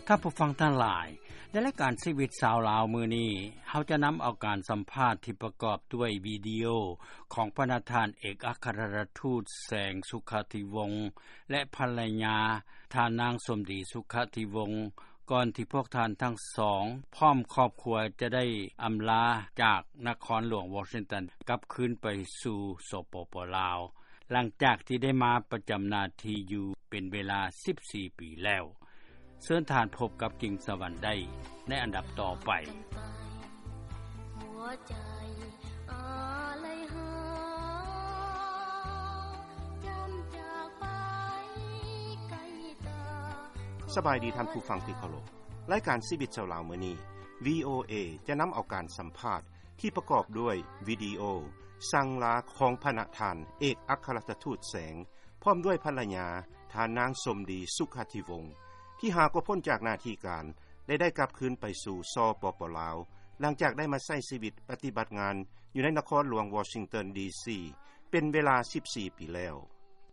ທ່ານຜູ້ຟັງທັງຫຼາຍ, ໃນລາຍການຊີວິດຊາວລາວມື້ນີ້, ເຮົາຈະນຳເອົາການສຳພາດທີ່ປະກອບດ້ວຍວິດີໂອຂອງພະນະທ່ານເອກອັຄຄະລັດຖະທູດແສງ ສຸຂະທິວົງ ແລະ ພັນລະຍາ ທ່ານນາງສົມດີ ສຸຂະທິວົງ ກ່ອນທີ່ພວກທ່ານທັງສອງ ພ້ອມຄອບຄົວຈະໄດ້ອຳລາຈາກນະຄອນຫຼວງວໍຊິງຕັນ ກັບຄືນໄປສູ່ ສປປ ລາວ ຫຼັງຈາກທີ່ໄດ້ມາປະຈຳໜ້າທີ່ຢູ່ເປັນເວລາສິບສີ່ປີແລ້ວ. ເຊີນທ່ານພົບກັບກິ່ງສະຫວັນໄດ້ໃນອັນດັບຕໍ່ໄປ. ສະບາຍດີທ່ານຜູ້ຟັງທີ່ເຄົາລົບ. ລາຍການຊີວິດຊາວລາວມື້ນີ້ ວີໂອເອ ຈະນຳເອົາການສຳພາດທີ່ປະກອບດ້ວຍວິດີໂອສັ່ງລາຂອງພະນະທ່ານເອກອັກຄະລັດຖະທູດແສງ ພ້ອມດ້ວຍພັນລະຍາ ທ່ານນາງສົມດີ ສຸຂະທິວົງ ທີ່ຫາກໍພົ້ນຈາກໜ້າທີ່ການ ແລະ ໄດ້ກັບຄືນໄປສູ່ ສປປ ລາວ ຫຼັງຈາກໄດ້ມາໃຊ້ຊີວິດປະຕິບັດງານຢູ່ໃນນະຄອນຫຼວງວໍຊິງຕັນ ດີຊີ ເປັນເວລາສິບສີ່ປີແລ້ວ.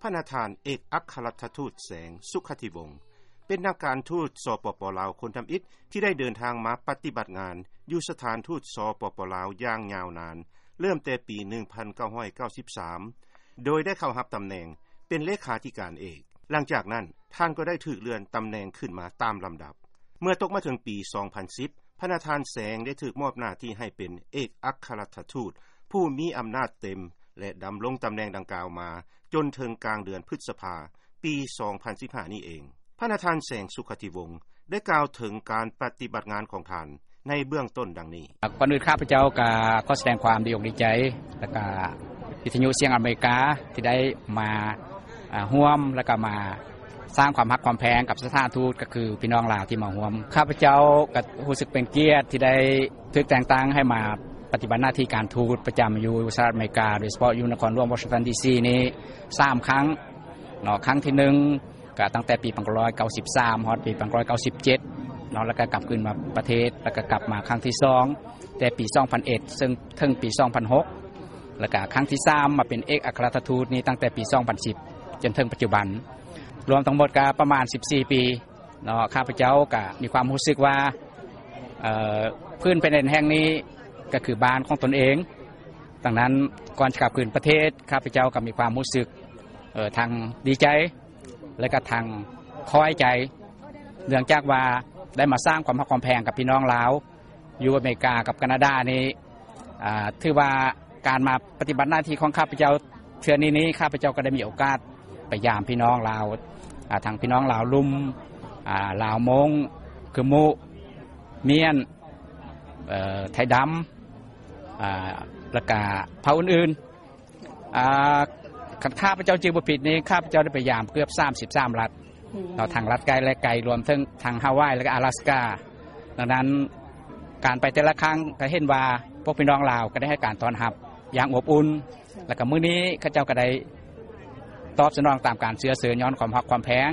ພະນະທ່ານເອກອັກຄະລັດຖະທູດແສງ ສຸຂະທິວົງ ເປັນນັກການທູດ ສປປ ລາວ ຄົນທຳອິດທີ່ໄດ້ເດີນທາງມາປະຕິບັດງານຢູ່ສະຖານທູດ ສປປ ລາວ ຢ່າງຍາວນານ ເລີ່ມແຕ່ປີໜຶ່ງພັນເກົ້າຮ້ອຍເກົ້າສິບສາມ ໂດຍໄດ້ເຂົ້າຮັບຕຳແໜ່ງເປັນເລຂາທິການເອກ. ຫຼັງຈາກນັ້ນ ທ່ານກໍໄດ້ຖືກເລື່ອນຕຳແໜ່ງຂຶ້ນມາຕາມລຳດັບ. ເມື່ອຕົກມາເຖິງປີສອງພັນສິບ ພະນະທ່ານແສງໄດ້ຖືກມອບໜ້າທີ່ໃຫ້ເປັນເອກອັກຄະລັດຖະທູດຜູ້ມີອຳນາດເຕັມ ແລະ ດຳລົງຕຳແໜ່ງດັ່ງກ່າວມາຈົນເຖິງກາງເດືອນພຶດສະພາ ປີສອງພັນສິບຫ້ານີ້ເອງ. ພະນະທ່ານແສງ ສຸຂະທິວົງ ໄດ້ກ່າວເຖິງການປະຕິບັດງານຂອງທ່ານໃນເບື້ອງຕົ້ນດັ່ງນີ້. ກ່ອນອື່ນຂ້າພະເຈົ້າກໍຂໍສະແດງຄວາມດີອົກດີໃຈ ແລ້ວກໍວິທະຍຸສຽງອາເມລິກາທີ່ໄດ້ມາ ອາ ຮ່ວມ ແລ້ວກໍມາສ້າງຄວາມຮັກຄວາມແພງກັບສະຖານທູດ ກໍຄືພີ່ນ້ອງລາວທີ່ມາຮ່ວມ. ຂ້າພະເຈົ້າກໍຮູ້ສຶກເປັນກຽດທີ່ໄດ້ຖືກແຕ່ງຕັ້ງໃຫ້ມາປະຕິບັດໜ້າທີ່ການທູດປະຈຳຢູ່ສະຫະລັດອາເມລິກາ ໂດຍສະເພາະຢູ່ນະຄອນຫຼວງວໍຊິງຕັນ ດີຊີ ນີ້ສາມຄັ້ງເນາະ. ຄັ້ງທີໜຶ່ງ ກໍຕັ້ງແຕ່ປີໜຶ່ງພັນເກົ້າຮ້ອຍເກົ້າສິບສາມ ຮອດປີໜຶ່ງພັນເກົ້າຮ້ອຍເກົ້າສິບເຈັດເນາະ ແລ້ວກໍກັບຄືນມາປະເທດ ແລ້ວກໍກັບມາຄັ້ງທີສອງ ແຕ່ປີສອງພັນເອັດ ເຊິ່ງເຖິງປີສອງພັນຫົກ ແລ້ວກໍຄັ້ງທີສາມມາເປັນເອກອັກຄະລັດຖະທູດນີ້ຕັ້ງແຕ່ປີສອງພັນສິບ ຈົນເຖິງປັດຈຸບັນ ລວມທັງໝົດກໍປະມານສິບສີ່ປີເນາະ. ຂ້າພະເຈົ້າກໍມີຄວາມຮູ້ສຶກວ່າ ເອີ ພື້ນແຜ່ນດິນແຫ່ງນີ້ກໍຄືບ້ານຂອງຕົນເອງ. ດັ່ງນັ້ນ ກ່ອນຈະກັບຄືນປະເທດ ຂ້າພະເຈົ້າກໍມີຄວາມຮູ້ສຶກ ເອີ ທັງດີໃຈ ແລະກໍທັງຄອຍໃຈ ເນື່ອງຈາກວ່າໄດ້ມາສ້າງຄວາມຮັກຄວາມແພງກັບພີ່ນ້ອງລາວຢູ່ອາເມລິກາກັບການາດານີ້ ອາ ຖືວ່າການມາປະຕິບັດໜ້າທີ່ຂອງຂ້າພະເຈົ້າເທື່ອນີ້ນີ້ ຂ້າພະເຈົ້າກໍໄດ້ມີໂອກາດໄປຢາມພີ່ນ້ອງລາວ ອາ ທັງພີ່ນ້ອງລາວລຸ່ມ ອາ ລາວມົ້ງ ກຶມມຸ ມ້ຽນ ເອີ ໄທດຳ ອາ ແລ້ວກະເຜົ່າອື່ນໆ ອາ ຄັນຂ້າພະເຈົ້າຈື່ບໍ່ຜິດນີ້ ຂ້າພະເຈົ້າໄດ້ໄປຢາມເກືອບສາມສິບສາມລັດເນາະ ທັງລັດໃກ້ແລະໄກ ລວມເຖິງທັງຮາວາຍ ແລະກະອາລາສກາ. ດັ່ງນັ້ນ ການໄປແຕ່ລະຄັ້ງກໍເຫັນວ່າພວກພີ່ນ້ອງລາວກໍໄດ້ໃຫ້ການຕ້ອນຮັບຢ່າງອົບອຸ່ນ ແລ້ວກໍມື້ນີ້ເຂົາເຈົ້າກໍໄດ້ຕອບສະໜອງຕາມການເຊື້ອເຊີນ ຍ້ອນຄວາມຮັກຄວາມແພງ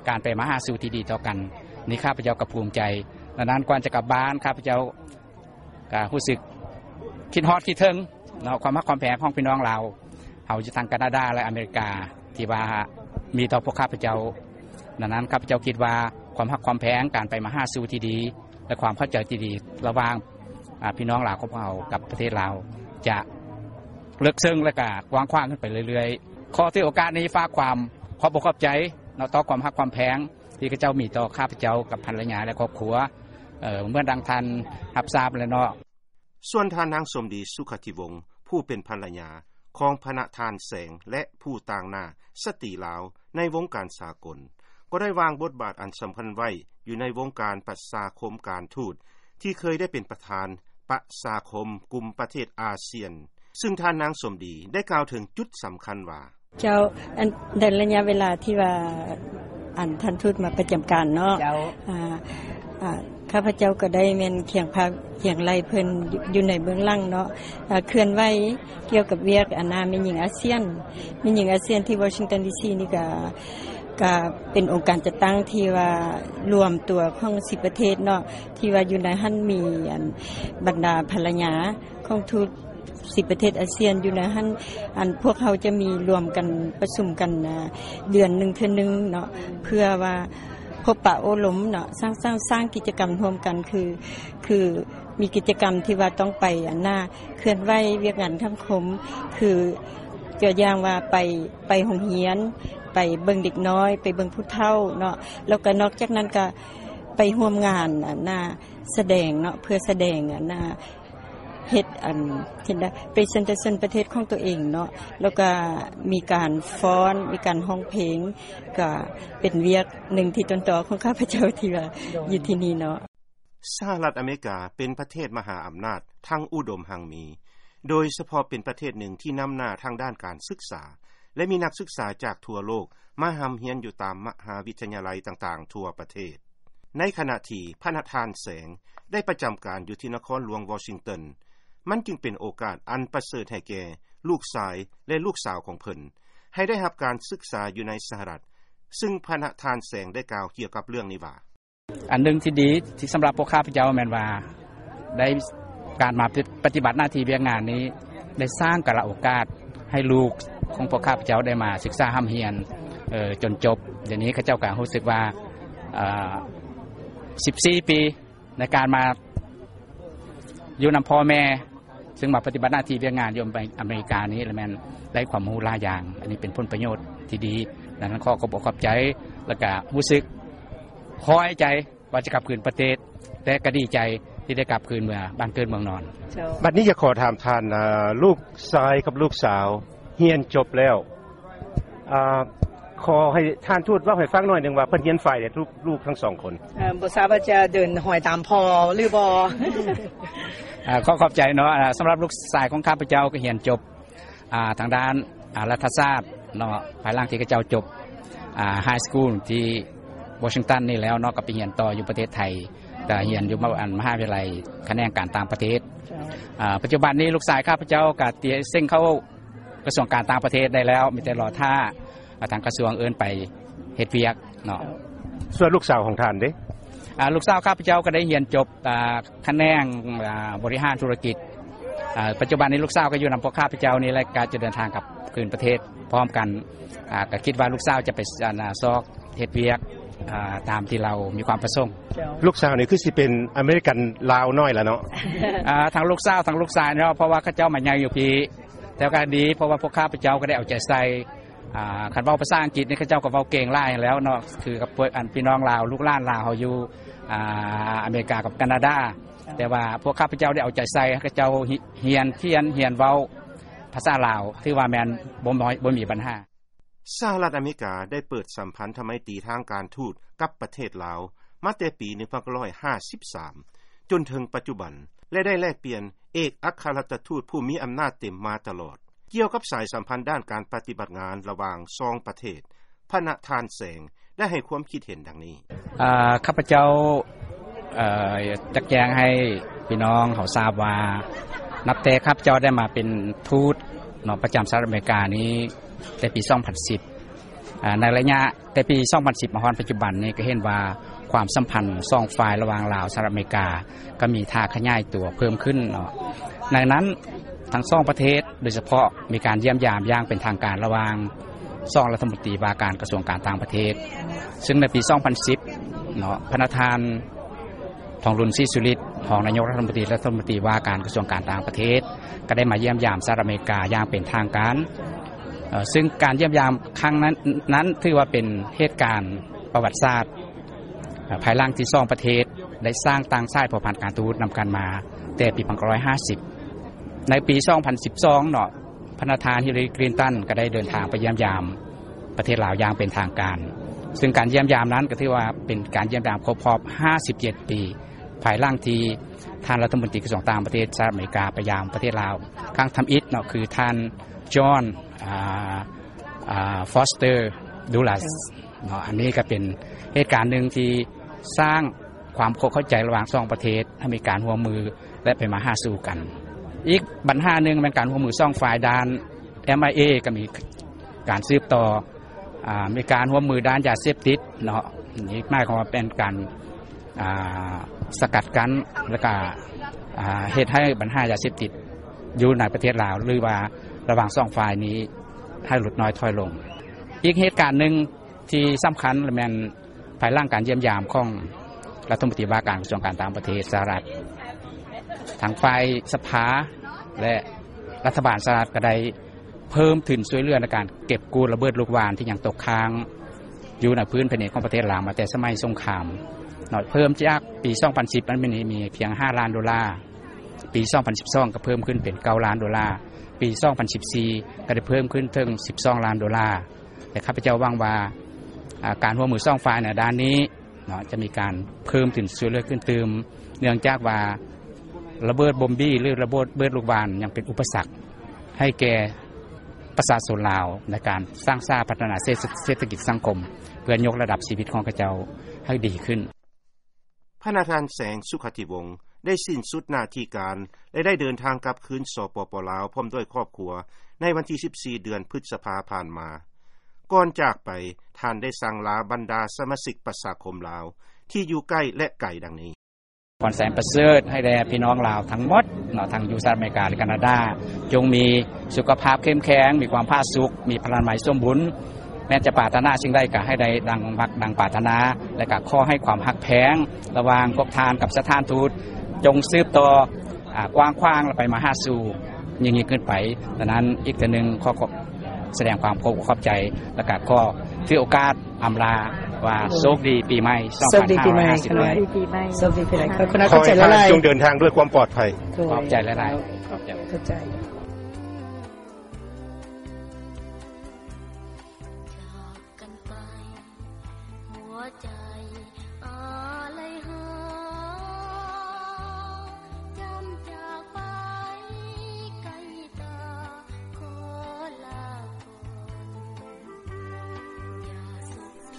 ການໄປມາຫາສູ່ທີ່ດີຕໍ່ກັນນີ້ ຂ້າພະເຈົ້າກໍພູມໃຈ. ດັ່ງນັ້ນ ກ່ອນຈະກັບບ້ານ ຂ້າພະເຈົ້າ ກໍຮູ້ສຶກຄິດຮອດຄິດເຖິງເນາະ ຄວາມຮັກຄວາມແພງຂອງພີ່ນ້ອງລາວເຮົາຢູ່ທາງການາດາ ແລະອາເມລິກາ ທີ່ວ່າມີຕໍ່ພວກຂ້າພະເຈົ້າ. ດັ່ງນັ້ນ ຂ້າພະເຈົ້າຄິດວ່າຄວາມຮັກຄວາມແພງ ການໄປມາຫາສູ່ທີ່ດີ ແລະຄວາມເຂົ້າໃຈທີ່ດີລະຫວ່າງ ອາ ພີ່ນ້ອງລາວຂອງພວກເຮົາກັບປະເທດລາວ ຈະເລິກເຊິ່ງ ແລະກະກວ້າງຂວາງຂຶ້ນໄປເລື້ອຍໆ. ຂໍຖືໂອກາດນີ້ຝາກຄວາມຂອບອົກຂອບໃຈເນາະ ຕໍ່ຄວາມຮັກຄວາມແພງ ທີ່ເຂົາເຈົ້າມີຕໍ່ຂ້າພະເຈົ້າກັບພັນລະຍາ ແລະຄອບຄົວ ເອີ ເໝືອນດັ່ງທ່ານຮັບຊາບແລ້ວເນາະ. ສ່ວນທ່ານນາງສົມດີ ສຸຂະທິວົງ ຜູ້ເປັນພັນລະຍາຂອງພະນະທ່ານແສງ ແລະ ຜູ້ຕາງໜ້າສະຕີລາວໃນວົງການສາກົນ ກໍໄດ້ວາງບົດບາດອັນສຳຄັນໄວ້ຢູ່ໃນວົງການປະຊາຄົມການທູດ ທີ່ເຄີຍໄດ້ເປັນປະທານປະຊາຄົມກຸ່ມປະເທດອາຊຽນ ຊຶ່ງທ່ານນາງສົມດີໄດ້ກ່າວເຖິງຈຸດສຳຄັນວ່າ ເຈົ້າ ອັນ ໃນໄລຍະເວລາທີ່ວ່າ ອັນ ທ່ານທູດມາປະຈຳການເນາະ ເຈົ້າ ອາ ອາ ຂ້າພະເຈົ້າກໍໄດ້ແມ່ນຄຽງພາຄຽງໄຫຼເພິ່ນຢູ່ໃນເບື້ອງຫຼັງເນາະ ອາ ເຄື່ອນໄຫວກ່ຽວກັບວຽກ ອັນ ນາແມ່ຍິງອາຊຽນ ແມ່ຍິງອາຊຽນທີ່ວໍຊິງຕັນ ດີຊີ ນີ້ກະ ກະເປັນອົງການຈັດຕັ້ງທີ່ວ່າລວມຕົວຂອງສິບປະເທດເນາະ ທີ່ວ່າຢູ່ໃນຫັ້ນມີ ອັນ ບັນດາພັນລະຍາຂອງທູດ ສິບປະເທດອາຊຽນຢູ່ໃນຫັ້ນ ອັນ ພວກເຮົາຈະມີລວມກັນປະຊຸມກັນ ອາ ເດືອນໜຶ່ງເທື່ອໜຶ່ງເນາະ ເພື່ອວ່າ ພົບປະໂອ້ລົມເນາະ ສ້າງ ສ້າງ ສ້າງກິດຈະກຳຮ່ວມກັນ ຄື ຄືມີກິດຈະກຳທີ່ວ່າຕ້ອງໄປອັນນ່າ ເຄື່ອນໄຫວວຽກງານສັງຄົມ ຄືຕົວຢ່າງວ່າໄປ ໄປໂຮງຮຽນ ໄປເບິ່ງເດັກນ້ອຍ ໄປເບິ່ງຜູ້ເຖົ້າເນາະ ແລ້ວກໍນອກຈາກນັ້ນກໍໄປຮ່ວມງານອັນນ່າ ສະແດງເນາະ ເພື່ອສະແດງອັນນ່າ ເຮັດອັນ ເຮັດໄດ້ presentation ປະເທດຂອງຕົວເອງເນາະ ແລ້ວກະມີການຟ້ອນ ມີການຮ້ອງເພງ ກະເປັນວຽກໜຶ່ງທີ່ຕົ້ນຕໍຂອງຂ້າພະເຈົ້າທີ່ວ່າ ໂດຍ ຢູ່ທີ່ນີ້ເນາະ. ສະຫະລັດອາເມລິກາເປັນປະເທດມະຫາອຳນາດທັງອຸດົມຮັ່ງມີ, ໂດຍສະເພາະເປັນປະເທດໜຶ່ງທີ່ນຳໜ້າທາງດ້ານການສຶກສາ ແລະ ມີນັກສຶກສາຈາກທົ່ວໂລກມາຮ່ຳຮຽນຢູ່ຕາມມະຫາວິທະຍາໄລຕ່າງໆທົ່ວປະເທດ. ໃນຂະນະທີ່ພະນະທ່ານແສງໄດ້ປະຈຳການຢູ່ທີ່ນະຄອນຫຼວງວໍຊິງຕັນ, ມັນຈຶ່ງເປັນໂອກາດອັນປະເສີດໃຫ້ແກ່ລູກຊາຍ ແລະ ລູກສາວຂອງເພິ່ນ ໃຫ້ໄດ້ຮັບການສຶກສາຢູ່ໃນສະຫະລັດ, ຊຶ່ງພະນະທ່ານແສງໄດ້ກ່າວກ່ຽວກັບເລື່ອງນີ້ວ່າ: ອັນໜຶ່ງທີ່ດີທີ່ສຳລັບພວກຂ້າພະເຈົ້າແມ່ນວ່າ ໄດ້ ການມາປະຕິບັດໜ້າທີ່ວຽກງານນີ້ ໄດ້ສ້າງກາລະໂອກາດໃຫ້ລູກຂອງພວກຂ້າພະເຈົ້າໄດ້ມາສຶກສາຮ່ຳຮຽນ ເອີ ຈົນຈົບ. ດຽວນີ້ເຂົາເຈົ້າກໍຮູ້ສຶກວ່າ ເອີ ສິບສີ່ປີໃນການມາຢູ່ນຳພໍ່ແມ່ ຊຶ່ງມາປະຕິບັດໜ້າທີ່ວຽກງານຢູ່ອາເມລິການີ້ ລະແມ່ນໄດ້ຄວາມຮູ້ຫຼາຍຢ່າງ. ອັນນີ້ເປັນຜົນປະໂຫຍດທີ່ດີ. ດັ່ງນັ້ນຂໍຂອບອົກຂອບໃຈ ແລ້ວກະຮູ້ສຶກພໍໃຈ ວ່າຈະກັບຄືນປະເທດ ແຕ່ກໍດີໃຈທີ່ໄດ້ກັບຄືນເມືອບ້ານເກີດເມືອງນອນ. ເຈົ້າ. ບັດນີ້ຢາກຂໍຖາມທ່ານ ເອີ ລູກຊາຍກັບລູກສາວຮຽນຈົບແລ້ວ ອາ ຂໍໃຫ້ທ່ານທູດເວົ້າໃຫ້ຟັງໜ້ອຍໜຶ່ງວ່າເພິ່ນຮຽນຝ່າຍໃດ ລູກ ລູກທັງສອງຄົນ? ເອີ ບໍ່ຊາບວ່າຈະເດີນຮອຍຕາມພໍ່ຫຼືບໍ່? ອາ ຂໍຂອບໃຈເນາະ. ອາ ສຳລັບລູກຊາຍຂອງຂ້າພະເຈົ້າກໍຮຽນຈົບ ອ່າ ທາງດ້ານ ອ່າ ລັດຖະສາດເນາະ ພາຍຫຼັງທີ່ເຂົາເຈົ້າຈົບ ອ່າ High School ທີ່ວໍຊິງຕັນນີ້ແລ້ວເນາະ ກໍໄປຮຽນຕໍ່ຢູ່ປະເທດໄທ ກໍຮຽນຢູ່ມະ ອັນ ມະຫາວິທະຍາໄລຂະແໜງການຕ່າງປະເທດ. ເຈົ້າ. ອ່າ ປັດຈຸບັນນີ້ລູກຊາຍຂ້າພະເຈົ້າກໍຕຽມເສັງເຂົ້າກະຊວງການຕ່າງປະເທດໄດ້ແລ້ວ ມີແຕ່ລໍຖ້າ ອ່າ ທາງກະຊວງເອີ້ນໄປເຮັດວຽກເນາະ. ສ່ວນລູກສາວຂອງທ່ານເດ? ອ່າ ລູກສາວຂ້າພະເຈົ້າກໍໄດ້ຮຽນຈົບ ອ່າ ຂະແໜງ ອ່າ ບໍລິຫານທຸລະກິດ. ອ່າ ປັດຈຸບັນນີ້ລູກສາວກໍຢູ່ນຳພວກຂ້າພະເຈົ້ານີ້ແຫຼະ ກໍຈະເດີນທາງກັບຄືນປະເທດພ້ອມກັນ. ອ່າ ກໍຄິດວ່າລູກສາວຈະໄປ ອັນ ຊອກເຮັດວຽກ ອ່າ ຕາມທີ່ລາວມີຄວາມປະສົງ. ເຈົ້າ. ລູກສາວນີ້ຄືຊິເປັນອາເມລິກັນລາວນ້ອຍລະເນາະ? ອ່າ ທັງລູກສາວທັງລູກຊາຍເນາະ ເພາະວ່າເຂົາເຈົ້າມາໃຫຍ່ຢູ່ພີ້ ແຕ່ກໍດີ ເພາະວ່າພວກຂ້າພະເຈົ້າກໍໄດ້ເອົາໃຈໃສ່ ອ່າ ຄັນເວົ້າພາສາອັງກິດນີ້ ເຂົາເຈົ້າກໍເວົ້າເກັ່ງຫຼາຍແລ້ວເນາະ ຄືກັບພວກ ອັນ ພີ່ນ້ອງລາວ ລູກຫຼານລາວເຮົາຢູ່ ອ່າ ອາເມລິກາກັບການາດາ. ແຕ່ວ່າພວກຂ້າພະເຈົ້າໄດ້ເອົາໃຈໃສ່ ເຂົາເຈົ້າຮຽນຂຽນ ຮຽນເວົ້າພາສາລາວ ຖືວ່າແມ່ນບໍ່ ບໍ່ມີບັນຫາ. ສະຫະລັດອາເມລິກາໄດ້ເປີດສຳພັນທະໄມຕີທາງການທູດກັບປະເທດລາວມາແຕ່ປີໜຶ່ງພັນເກົ້າຮ້ອຍຫ້າສິບສາມ ຈົນເຖິງປັດຈຸບັນ ແລະ ໄດ້ແລກປ່ຽນເອກອັກຄະລັດຖະທູດຜູ້ມີອຳນາດເຕັມມາຕະຫຼອດ. ກ່ຽວກັບສາຍສຳພັນດ້ານການປະຕິບັດງານລະຫວ່າງສອງປະເທດ, ພະນະທ່ານແສງໄດ້ໃຫ້ຄວາມຄິດເຫັນດັ່ງນີ້. ເອີ ຂ້າພະເຈົ້າ ເອີ ຢາກແຈ້ງໃຫ້ພີ່ນ້ອງເຮົາຊາບວ່າ ນັບແຕ່ຂ້າພະເຈົ້າໄດ້ມາເປັນທູດເນາະ ປະຈຳສະຫະລັດອາເມລິການີ້ ແຕ່ປີສອງພັນສິບ ອາ ໃນໄລຍະແຕ່ປີສອງພັນສິບມາຮອດປັດຈຸບັນນີ້ ກໍເຫັນວ່າຄວາມສຳພັນສອງຝ່າຍລະຫວ່າງລາວ ສະຫະລັດອາເມລິກາ ກໍມີທ່າຂະຫຍາຍຕົວເພີ່ມຂຶ້ນເນາະ. ໃນນັ້ນທັງສອງປະເທດ ໂດຍສະເພາະມີການຢ້ຽມຢາມຢ່າງເປັນທາງການລະຫວ່າງສອງລັດຖະມົນຕີວ່າການກະຊວງການຕ່າງປະເທດ ຊຶ່ງໃນປີສອງພັນສິບເນາະ ພະນະທ່ານ ທອງລຸນ ສີສຸລິດ ຮອງນາຍົກລັດຖະມົນຕີ ລັດຖະມົນຕີວ່າການກະຊວງການຕ່າງປະເທດ ກໍໄດ້ມາຢ້ຽມຢາມສະຫະລັດອາເມລິກາຢ່າງເປັນທາງການ ເຊິ່ງການຢ້ຽມຢາມຄັ້ງນັ້ນ ນັ້ນຖືວ່າເປັນເຫດການປະຫວັດສາດ ພາຍຫຼັງທີ່ສອງປະເທດໄດ້ສ້າງຕັ້ງສາຍພົວພັນການທູດນຳກັນມາແຕ່ປີໜຶ່ງພັນເກົ້າຮ້ອຍຫ້າສິບ. ໃນປີສອງພັນສິບສອງເນາະ ພະນະທ່ານ ຮິລລາລີ ຄລິນຕັນ ກໍໄດ້ເດີນທາງໄປຢ້ຽມຢາມປະເທດລາວຢ່າງເປັນທາງການ ຊຶ່ງການຢ້ຽມຢາມນັ້ນກໍຖືວ່າເປັນການຢ້ຽມຢາມຄົບຮອບຫ້າສິບເຈັດປີ ພາຍຫຼັງທີ່ທ່ານລັດຖະມົນຕີກະຊວງຕ່າງປະເທດສະຫະລັດອາເມລິກາໄປຢາມປະເທດລາວຄັ້ງທຳອິດເນາະ ຄືທ່ານ ຈອນ ອ່າ ອ່າ ຟອສເຕີ ດູລັດ ເນາະ. ອັນນີ້ກໍເປັນເຫດການໜຶ່ງທີ່ສ້າງຄວາມເຂົ້າໃຈລະຫວ່າງສອງປະເທດ ໃຫ້ມີການຮ່ວມມື ແລະ ໄປມາຫາສູ່ກັນ. ອີກບັນຫາໜຶ່ງແມ່ນການຮ່ວມມືສອງຝ່າຍດ້ານ ເອັມໄອເອ ກໍມີການສືບຕໍ່ ອ່າ ມີການຮ່ວມມືດ້ານຢາເສບຕິດເນາະ. ນີ້ໝາຍຄວາມວ່າເປັນການ ອ່າ ສະກັດກັ້ນ ແລ້ວກໍ ອ່າ ເຮັດໃຫ້ບັນຫາຢາເສບຕິດຢູ່ໃນປະເທດລາວ ຫຼືວ່າລະຫວ່າງສອງຝ່າຍນີ້ໃຫ້ຫຼຸດນ້ອຍຖອຍລົງ. ອີກເຫດການໜຶ່ງ ທີ່ສຳຄັນລະແມ່ນ ພາຍຫຼັງການຢ້ຽມຢາມຂອງລັດຖະມົນຕີວ່າການກະຊວງການຕ່າງປະເທດສະຫະລັດ, ທາງຝ່າຍສະພາ ແລະ ລັດຖະບານສະຫະລັດກໍໄດ້ເພີ່ມທຶນຊ່ວຍເຫຼືອໃນການເກັບກູ້ລະເບີດລູກຫວ່ານທີ່ຍັງຕົກຄ້າງຢູ່ໃນພື້ນແຜ່ນດິນຂອງປະເທດລາວມາແຕ່ສະໄໝສົງຄາມເນາະ, ເພີ່ມຈາກປີສອງພັນສິບ ມັນມີ ມີພຽງຫ້າລ້ານໂດລາ, ປີສອງພັນສິບສອງກໍເພີ່ມຂຶ້ນເປັນເກົ້າລ້ານໂດລາ, ປີສອງພັນສິບສີ່ກໍໄດ້ເພີ່ມຂຶ້ນເຖິງສິບສອງລ້ານໂດລາ. ແລະ ຂ້າພະເຈົ້າຫວັງວ່າ ອາ ການຮ່ວມມືສອງຝ່າຍໃນດ້ານນີ້ເນາະ ຈະມີການເພີ່ມທຶນຊ່ວຍເຫຼືອຂຶ້ນຕື່ມ, ເນື່ອງຈາກວ່າລະເບີດບົມບີ ຫຼື ລະເບີດ ເບີດລູກຫວ່ານຍັງເປັນອຸປະສັກໃຫ້ແກ່ປະຊາຊົນລາວໃນການສ້າງສາພັດທະນາເສດ ເສດຖະກິດສັງຄົມ ເພື່ອຍົກລະດັບຊີວິດຂອງເຂົາເຈົ້າໃຫ້ດີຂຶ້ນ. ພະນະທ່ານ ແສງ ສຸຂະທິວົງ ໄດ້ສິ້ນສຸດໜ້າທີ່ການ ແລະ ໄດ້ເດີນທາງກັບຄືນ ສປປ ລາວ ພ້ອມດ້ວຍຄອບຄົວ ໃນວັນທີສິບສີ່ ເດືອນພຶດສະພາຜ່ານມາ. ກ່ອນຈາກໄປ, ທ່ານໄດ້ສັ່ງລາບັນດາສະມາຊິກປະຊາຄົມລາວ ທີ່ຢູ່ໃກ້ ແລະ ໄກ ດັ່ງນີ້. ພອນແສນປະເສີດໃຫ້ແດ່ພີ່ນ້ອງລາວທັງໝົດເນາະ, ທັງຢູ່ສະຫະລັດອາເມລິກາ ແລະ ການາດາ, ຈົ່ງມີສຸຂະພາບເຂັ້ມແຂງ, ມີຄວາມຜາສຸກ, ມີພະລານາໄມສົມບູນ, ແມ່ນຈະປາດຖະໜາສິ່ງໃດກໍໃຫ້ໄດ້ດັ່ງມັກດັ່ງປາດຖະໜາ ແລະ ກໍຂໍໃຫ້ຄວາມຮັກແພງລະຫວ່າງພວກທ່ານກັບສະຖານທູດ ຈົ່ງສືບຕໍ່ ອາ ກວ້າງຂວາງ ແລະ ໄປມາຫາສູ່ຍິ່ງໆຂຶ້ນໄປ. ດັ່ງນັ້ນ ອີກເທື່ອໜຶ່ງ ຂໍ ຂໍສະແດງຄວາມຂອບອົກຂອບໃຈ ແລະ ກໍຂໍຖືໂອກາດອຳລາວ່າ ໂຊກດີປີໃໝ່ ໂຊກດີປີໃໝ່ ສອງພັນຫ້າຮ້ອຍຫ້າສິບ ໂຊກດີປີໃໝ່ ໂຊກດີປີໃໝ່. ຂໍໃຫ້ທ່ານຈົ່ງເດີນທາງດ້ວຍຄວາມປອດໄພ. ຂອບໃຈຫຼາຍໆ. ຂອບໃຈ.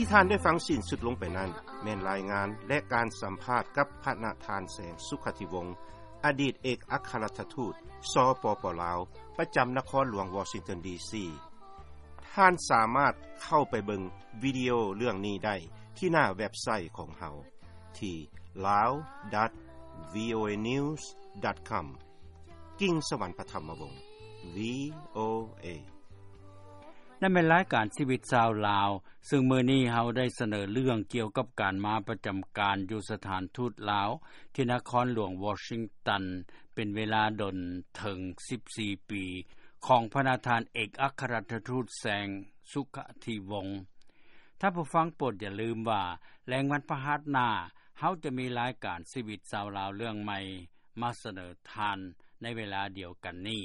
ທີ່ທ່ານໄດ້ຟັງສິ້ນສຸດລົງໄປນັ້ນ ແມ່ນລາຍງານ ແລະ ການສຳພາດກັບພະນະທ່ານ ແສງ ສຸຂະທິວົງ ອະດີດເອກອັກຄະລັດຖະທູດ ສປປ ລາວ ປະຈຳນະຄອນຫຼວງວໍຊິງຕັນ ດີຊີ. ທ່ານສາມາດເຂົ້າໄປເບິ່ງວິດີໂອເລື່ອງນີ້ໄດ້ທີ່ໜ້າເວັບໄຊຂອງເຮົາ ທີ່ ລາວ ດອດ ວີໂອເອ ນິວສ໌ ດອດ ຄອມ. ກິ່ງສະຫວັນ ປະຖຳມະວົງ ວີໂອເອ. ນັ້ນແມ່ນລາຍການຊີວິດຊາວລາວ, ເຊິ່ງມື້ນີ້ເຮົາໄດ້ສະເໜີເລື່ອງກ່ຽວກັບການມາປະຈຳການຢູ່ສະຖານທູດລາວທີ່ນະຄອນຫຼວງວໍຊິງຕັນ ເປັນເວລາດົນເຖິງສິບສີ່ປີ ຂອງພະນະທ່ານເອກອັກຄະລັດຖະທູດ ແສງ ສຸຂະທິວົງ. ທ່ານຜູ້ຟັງໂປດຢ່າລືມວ່າ ແລງວັນພະຫັດໜ້າ ເຮົາຈະມີລາຍການຊີວິດຊາວລາວເລື່ອງໃໝ່ມາສະເໜີທ່ານໃນເວລາດຽວກັນນີ້.